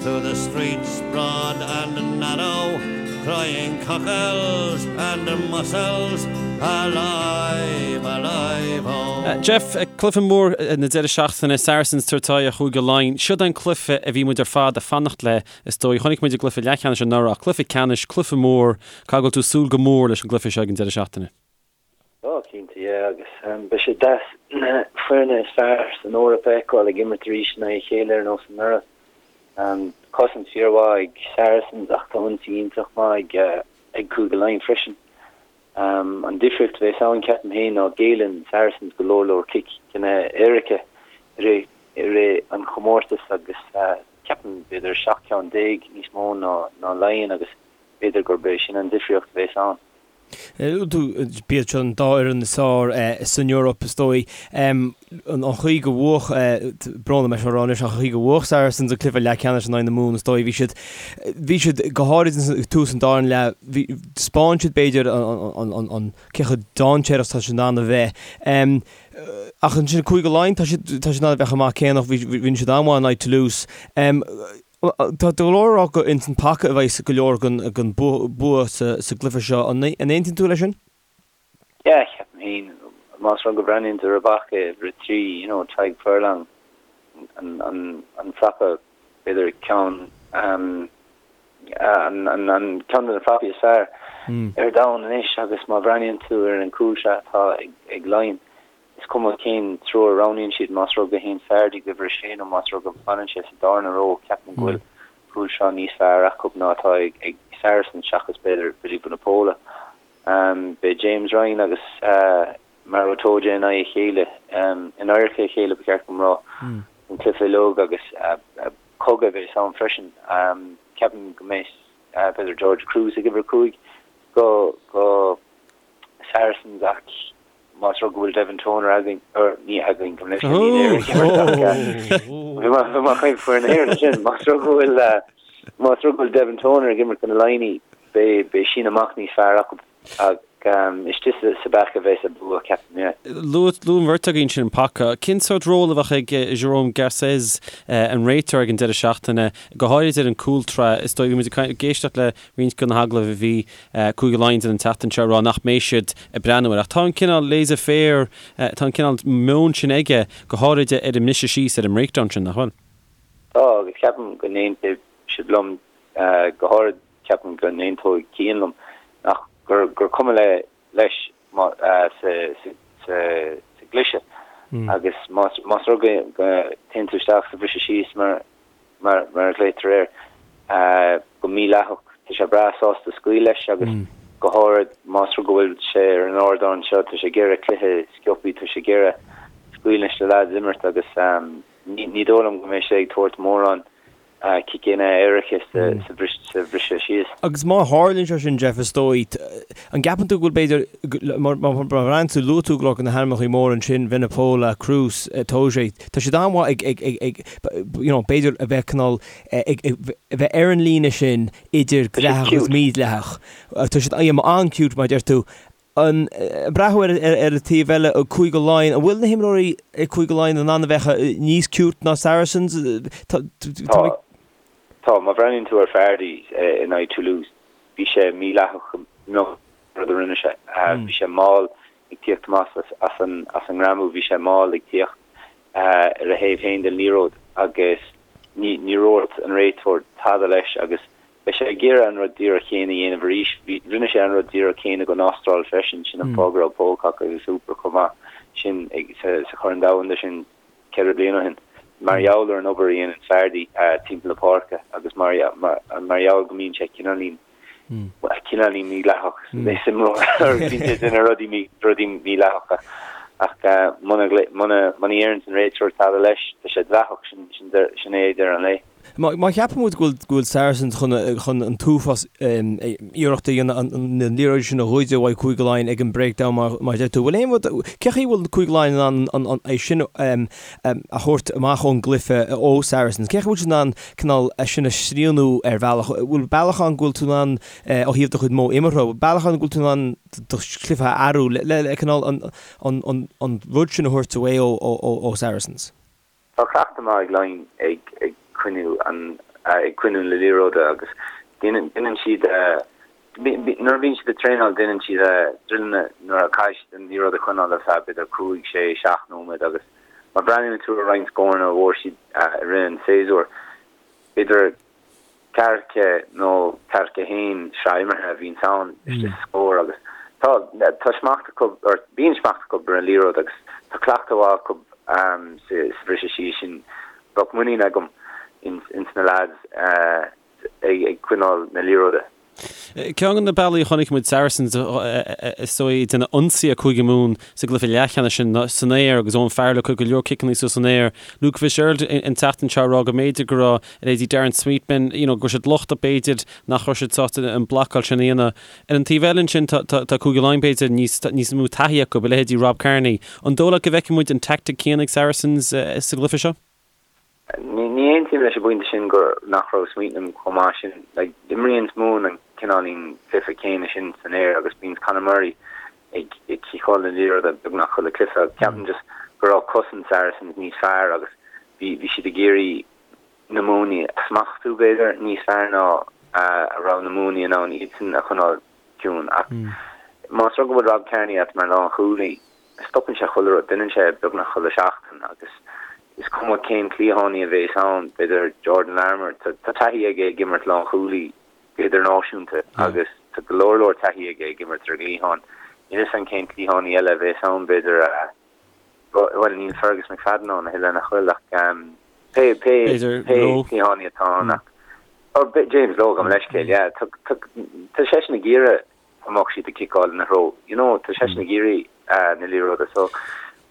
Through the streets broad and narrow Crying cockles and mussels Alive, alive, oh. Jeff, cluiche mór na deireadh seachtaine, Saracens ag tabhairt aghaidh ar Chúige Laighean. Siod é an cluiche a bhí muid ar fad ag fanacht le, is dóigh. Chonaic muid i gcluiche leathcheannais anuraidh ach cluiche ceannais, cluiche mór. Caithfidh go bhfuil tú ag súil go mór leis an gcluiche seo ag an deireadh seachtaine. Ó, cinnte, yeah, agus beidh sé deas na foirne is fearr san Eoraip a fheiceáil ag imirt arís in aghaidh a chéile ar nós anuraidh. Cosaint fíormhaith ag Saracens ach tá ionsaí iontach maith ag Cúige Laighean freisin. An difríocht a bheas ann, ceapaim féin, ná géilleann Saracens go leor leor ciceanna éirice i rith i rith an chomórtais agus ceapaim b'fhéidir 17 ceann níos mó ná Laighean agus b'fhéidir gurb é sin an difríocht a bheas ann. B'iad seo an dá fhoireann is fearr san Eoraip, is dóigh. An chaoi go bhuaigh, brón orm é seo a rá anois, ach an chaoi go bhuaigh Saracens an cluiche leathcheannais in aghaidh na Mumhan, is dóigh, bhí siad, bhí siad, go háirid ag tús an darna leath, bhí, thaispeáin siad b'fhéidir an, cé chomh dainséarach is atá siad in ann a bheith. Ach ansin Cúige Laighean, tá siad, tá siad in ann a bheith chomh maith céanna, bhí, bhí siad an-mhaith in aghaidh Toulouse. Tá go leor ag rá gur ins an paca a bheidh go leor den bua sa gcluiche seo. An aontaíonn tú leis sin? Yeah, ceapaim féin. Más rud go mbreathnaíonn tú ar an bpaca uimhir 3, you know, Tadhg Furlong, an prapa, b'fhéidir ceann, an ceann de na prapaí is fearr ar domhan anois agus má bhreathnaíonn tú ar an gcúlsraith atá ag Laighin, Is cuma cén triúr a roghnaíonn siad, más rud go théann Fardy go uimhir a sé nó más rud go bhfanann sé sa darna ró, ceapaim go bhfuil cúlsraith níos fearr acu ná atá ag Saracens seachas b'fhéidir Billy Vunipola. Beidh James Ryan agus Maro Itoje in aghaidh a chéile, in adharca a chéile ba cheart dom rá, an cluiche uilig agus cogadh a bheas ann freisin. Ceapaim go mbeidh b'fhéidir George Kruis ag uimhir 5 go Saracens ach más rud go bhfuil Devin Toner againn, or ní againn, gabh mo leithscéal, níl Éire ag imirt ach bhí mé bhí mé ag caint foireann na hÉireann ansin, más rud go bhfuil más rud go bhfuil Devin Toner ag imirt do na Laighnigh, beidh beidh síneadh amach níos fearr acu ach istigh sa sa bpaca a bheas an bua, ceapaim, yeah. Luaigh luaigh an bheirt agaibh ansin an paca. Cén sórt ról a bheadh ag Jérôme Garcès, an réiteoir ag an deireadh seachtaine, go háirid ar an gcúltrá? Is dóigh, bhí muid ag éisteacht le roinnt de na hagallaimh a bhí Cúige Laighean ag déanamh an tseachtain seo ag rá nach mbeidh siad ag breathnú air. Ach tá an cineál laissez-faire, tá an cineál meon sin aige, go háirid ar an mbriseadh síos, ar an mbreakdown sin, nach bhfuil? Tá, agus ceapaim go n-aontóidh sibh liom, go háirid ceapaim go n-aontóidh Cian liom, nach, gur, gur cuma le, leis má, sa, sa, sa, sa gcliseadh. Agus más, más rud go, go dtéann tú isteach sa bhriseadh síos mar, mar a ghlaotar air, go mídhleathach. Tá sé breá sásta scaoil leis agus go háirid más rud go bhfuil sé ar an ardán seo, tá sé ag iarraidh cluiche sciobthaí, tá sé ag iarraidh scaoil leis na leaids imirt agus ní dóigh liom go mbeidh sé ag tabhairt mórán. Ciceanna éirice sa bhriseadh síos. Agus má tharlaíonn sé sin, Jeff, is dóigh, an gceapann tú go bhfuil b'fhéidir, má bhreathnaíonn tú, luaigh tú go leor de na hainmneacha móra ansin, Vunipola, Kruis, Itoje, tá siad an-mhaith ag, ag, ag, you know, b'fhéidir a bheith cineál, ag, a bheith ar an líne sin idir dleathach agus mídhleathach. Tá siad an-cute, mar a deir tú. Ag breathnú ar an taobh eile, Cúige Laighean, an bhfuil na himreoirí ag Cúige Laighean in ann a bheith níos cute ná Saracens? Tá. Tá. Má bhreathnaíonn tú ar Fardy in aghaidh Toulouse, bhí sé mídhleathach an rud a rinne sé. Bhí sé mall ag tíocht amach as an ngreamú, bhí sé mall ag tíocht ar a thaobh féin den liathróid agus ní dhúirt an réiteoir tada leis agus Beidh sé ag iarraidh an rud díreach céanna a dhéanamh arís. Bhí, rinne sé an rud díreach céanna don Astráil freisin, sin an fáth go raibh Pocock agus Hooper chomh maith sin ag, sa, sa Chorn Domhanda sin ceithre bliana ó shin. Mar gheall ar an obair a dhéanann Fardy timpeall na páirce agus mar, mar, mar gheall go mbíonn sé cineáilín, bhuel, cineáilín mídhleathach, is imreoir, bíonn sé ag déanamh rudaí mí, rudaí mídhleathacha. Ach muna, muna, muna ndeireann an réiteoir tada leis, tá sé dleathach, sin, sin, sin é deireadh an lae. Má cheapann muid go bhfuil Saracens chun an t-uafás iarracht a dhéanamh an liathróid sin a ghoid uaidh Cúige Laighean ag an breakdown mar a deir tú, bhfuil aon rud, cén chaoi a bhfuil Cúige Laighean in ann é sin a thabhairt amach ón gcluiche ó Saracens? Cén chaoi a bhfuil siad in ann cineál é sin a shrianú ar bhealach? Bhfuil bealach ann go bhfuil tú in ann ó thaobh do chuid modh imeartha, bhfuil bealach ann go bhfuil tú in ann do chluiche a athrú le cineál an rud sin a thabhairt away ó Saracens? Tá cleachtadh maith ag Laighin ag coinniú an ag coinniú na liathróide agus déanann siad nuair a bhíonn siad ag traenáil déanann siad druileanna nuair a caithfidh siad an liathróid a choinneáil ar feadh b'fhéidir 5, 6, 7 nóiméad agus má bhreathnaíonn tú ar roinnt scóranna a bhfuair siad i rith an tséasúir b'fhéidir ceathracha nó 41 sraith imeartha a bhíonns ann istigh sa scór agus tá tá smacht acu or bíonn smacht acu ar an liathróid agus tá cleachtadh mhaith acu sa bhriseadh síos sin. Bheadh muinín agam ins na lads ag coinneáil na liathróide. Ceann de na bealaí a chonaic muid Saracens is dóigh ag déanamh ionsaí ar Chúige Mumhan sa gcluiche leathcheannais sin san aer agus Owen Farrell ag cur go leor ciceanna suas san aer. Luke Fitzgerald an tseachtain seo ag rá go mb'fhéidir go raibh leithéidí Darren Sweetnam, you know, go raibh siad lochtach b'fhéidir nach raibh siad sásta an blocáil sin a dhéanamh. Ar an taobh eile ansin tá tá Cúige Laighean b'fhéidir níos níos mó taithí acu, a leithéidí Rob Kearney. An dóigh leat go bhfeicfidh muid an tactic céanna ag Saracens sa gcluiche seo? Ní aontaím leis an bpointe sin gur nach raibh Sweetnam chomh maith sin. Like, imríonns Mumhan an cineáilín cluiche céanna sin san aer agus bíonns Conor Murray ag ag ciceáil na liathróide beagnach chuile cluiche agus ceapaim just go raibh cosaint Saracens níos fearr agus bhí bhí siad ag iarraidh na Muimhnigh a smachtú b'fhéidir níos fearr ná a raibh na Muimhnigh in ann iadsan a choinneáil ciúin. Ach más rud go bhfuil Rob Kearney agat mar lánchúlaí, stopann sé chuile rud, déanann sé beagnach chuile sheachtain agus is cuma cén cliathánaí a bhéas ann, b'fhéidir Jordan Larmour, tá taithí aige ag imirt lánchúlaí go hidirnáisiúnta agus tá go leor leor taithí aige ag imirt ar an gcliathán. Níl 'fhios a'm cén cliathánaí eile a bhéas ann, b'fhéidir, bhuel níl Fergus McFadden ann a thuilleadh nach bhfuil ach pé pé pé cliathánaí atá ann ach oh, James Lowe gabh mo leithscéal, yeah, tá seisean ag iarraidh go mbeadh siad ag ciceáil ina threo. You know, tá seisean ag iarraidh na liathróide. So,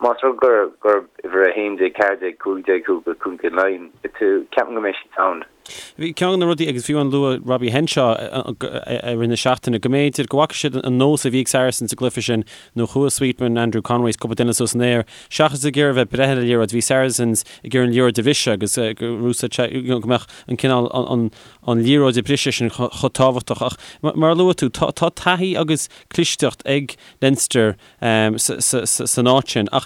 más rud gur gurb uimhir 11, 14, 15 thú do Chúige Laighean, tú, ceapaim go mbeidh siad sound. Bhí ceann de na rudaí, agus fiú amháin luaigh Robbie Henshaw i rith na seachtaine, go mb'fhéidir go bhfaca siad an nós a bhí ag Saracens sa gcluiche sin, nuair a chuaigh Sweetman, Andrew Conway is cúpla duine suas san aer, seachas ag iarraidh a bheith ag breith ar an liathróid, bhí Saracens ag iarraidh an liathróid a bhriseadh agus go mbeadh an cineál an an liathróid a bhriseadh sin chomh tábhachtach. Ach mar a luaigh tú, tá taithí agus clisteacht ag Leinster san áit sin. Ach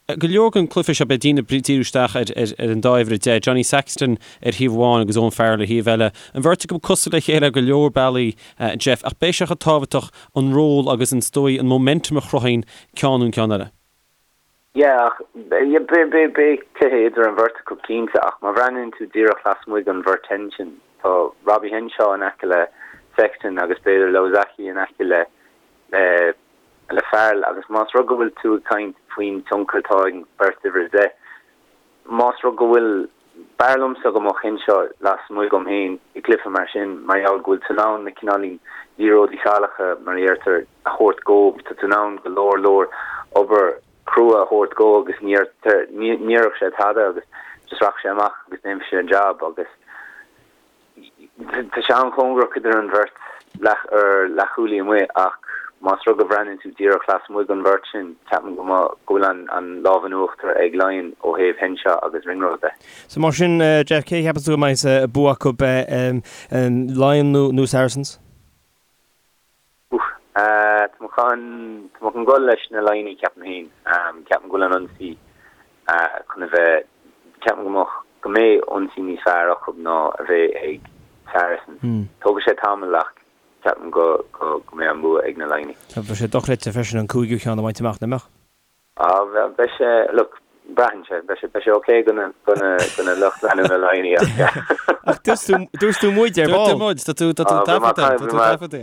go leor den cluiche seo, beidh daoine ag díriú isteach ar an dá uimhir 10, Johnny Sexton ar thaobh amháin agus Owen Farrell ar thaobh eile. An bheirt acu cosúil le chéile ar go leor bealaí, Jeff, ach beidh sé chomh tábhachtach an ról agus an dóigh, an momentum a chruthaíonn ceann nó an ceann eile. Yeah, ach beidh cluiche idir an bheirt acu cinnte, ach má bhreathnaíonn tú díreach lasmuigh den bheirt sin, tá Robbie Henshaw in aice le Sexton agus b'fhéidir Lauaki in aice le le Farrell agus más rud go bhfuil tú ag caint faoin tionchar atá ag an bheirt uimhir 10, Más rud go bhfuil, b'fhearr liomsa go mbeadh Henshaw lasmuigh dhom féin i gcluiche mar sin mar gheall go bhfuil tú in ann na cineáilín liathróidí salacha, mar a deirtear, a thabhairt dhó. Tá tú in ann go leor leor obair chrua a thabhairt dhó agus ní déarfadh sé tada agus just rachadh sé amach agus déanfaidh sé an jab agus. Tá sé an-chóngarach idir an bheirt leath ar leathchúlaí amuigh ach más rud go bhreathnaíonn tú díreach lasmuigh den bheirt sin, ceapaim go mba go bhfuil an an lámh in uachtar ag Laighin ó thaobh Henshaw agus Ringrose de. So mar sin, Jeff, cé a cheapann tú go mbeidh an bua acu, Laighin nó nó Saracens? Oof. Tá mé chun tá mé chun dul leis na Laighnigh ceapaim féin. Ceapaim go bhfuil an ionsaí chun a bheith ceapaim go mbeadh go mbeidh ionsaí níos fearr acu ná a bheidh ag Saracens. Tógfaidh sé tamall ach ceapaim go go go mbeidh an bua ag na Laighnigh. Bheadh sé dochreidte freisin an cúigiú ceann a bhaint amach, nach mbeadh? Ah, beidh sé, look, braitheann sé, beidh sé, beidh sé ok do na, do na, do na lucht leanúna Laighnigh ach yeah. Ach dúirt tú, dúirt tú muid ar ball. Dúirt tú muid, tá tú, tá tú taifeadta, tá tú taifeadta.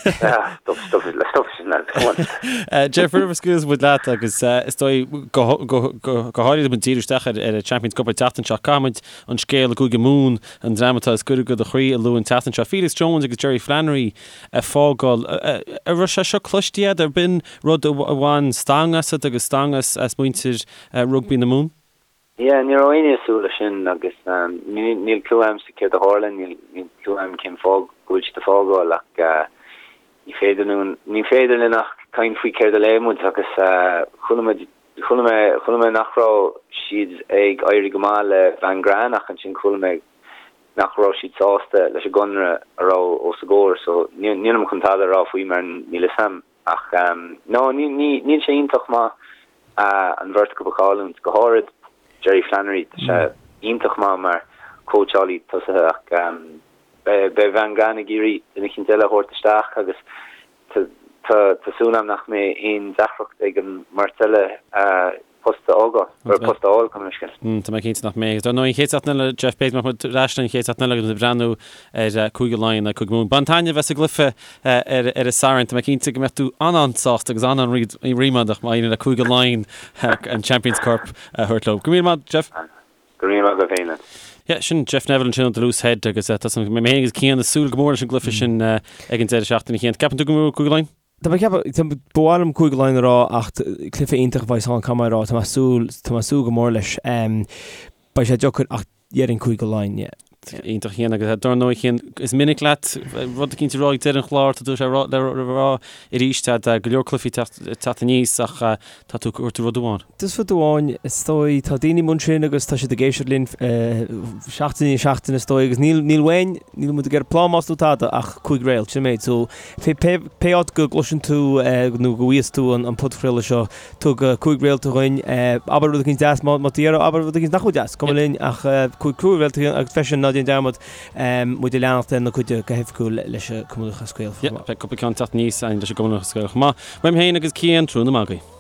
Yeah, stop, stop, stop sin lad, come on. Jeff, roimh a scaoilfidh muid leat agus is dóigh go, go, go, go háirithe muid díriú isteach ar, ar an Champions Cup an tseachtain seo, caithfidh muid an scéal i gCúige Mumhan, an dream atá is gaire do do chroí a lua an tseachtain seo. Felix Jones agus Jerry Flannery ag fágáil. An raibh sé seo cloiste agat, ar b'in rud a bhain stangadh asat agus stangadh as muintir rugbaí na Mumhan? Yeah, ní raibh éinne ag súil leis sin agus níl clue a'msa céard a tharla, níl clue a'm cén fáth go bhfuil siad ag fágáil ach ní féidir linn, ní féidir linn ach caint faoi céard a léigh muid agus chuala muid, chuala mé, chuala mé nach raibh siad ag éirí go maith le Van Graan ach ansin chuala mé nach raibh siad sásta leis an gconradh a raibh os a gcomhair so nílim chun tada a rá faoi mar níl fhios a'm ach no ní ní níl sé iontach maith an bheirt acu a chailliúint, go háirid Jerry Flannery, tá sé iontach maith mar cóitseálaí tosaithe ach beidh beidh Van Graan ag iarraidh duine eicínt eile a thabhairt isteach agus tá tá súil a'm nach mbeidh aon deacracht ag an mbeirt eile post a fhágáil, nó post a fháil, gabh mo leithscéal. Tá mé cinnte nach mbeidh. Dar ndóigh, an chéad seachtain eile, Jeff, b'fhéidir go mbeidh muid ar ais an chéad seachtain eile agus muid ag breathnú ar Cúige Laighean agus Cúige Mumhan. Bain taitneamh as an gcluiche ar an Satharn. Tá mé cinnte go mbeidh tú an-an-sásta agus an-an-ríméadach má éiríonn le Cúige Laighean an Champions Cup a thabhairt leo. Go raibh míle maith, Jeff. Go raibh míle maith agat féin, lad. Yeah, sin Jeff Neville ansin ó The Loose Head agus tá mé féin agus Cian ag súil go mór leis an gcluiche sin ag an deireadh seachtaine. Cian, ceapann tú go mbuafaidh Cúige Laighean? Tá mé ag ceapadh, tá, ba mhaith liom Cúige Laighean a rá ach cluiche iontach a bheas ann, caithfidh mé a rá, tá mé ag súil, tá mé ag súil go mór leis. Beidh sé deacair ach déarfainn Cúige Laighean, yeah. Iontach Cian agus dar ndóigh Cian, is minic leat rud eicínt a rá ag deireadh an chláir, tá tú sé le rá arís, tá go leor cluichí teacht aníos ach tá tú, tabhair rud amháin. Just rud amháin, is dóigh, tá daoine amuigh ansin agus tá siad ag éisteacht linn seachtain i ndiaidh seachtaine is dóigh agus níl, níl uainn, níl muid ag iarraidh plámás nó tada ach 5 réalt, sin an méid. So pé, pé, pé áit go gcloiseann tú nó go bhfaigheas tú an, an podchraoladh seo, tug 5 réalta dhuinn, abair rud eicínt deas má, má tá iarraidh, abair rud eicínt nach bhfuil deas, cuma linn ach 5, 5 réalta dhuinn agus freisin ná déan dearmad muid a leanacht ar na cuid go hoifigiúil leis an Cumann Lúthchleas Gael chomh maith. Yeah, beidh cúpla ceann teacht aníos leis an gCumann Lúthchleas Gael chomh maith. Uaim féin agus Cian, tráthnóna maith agaibh.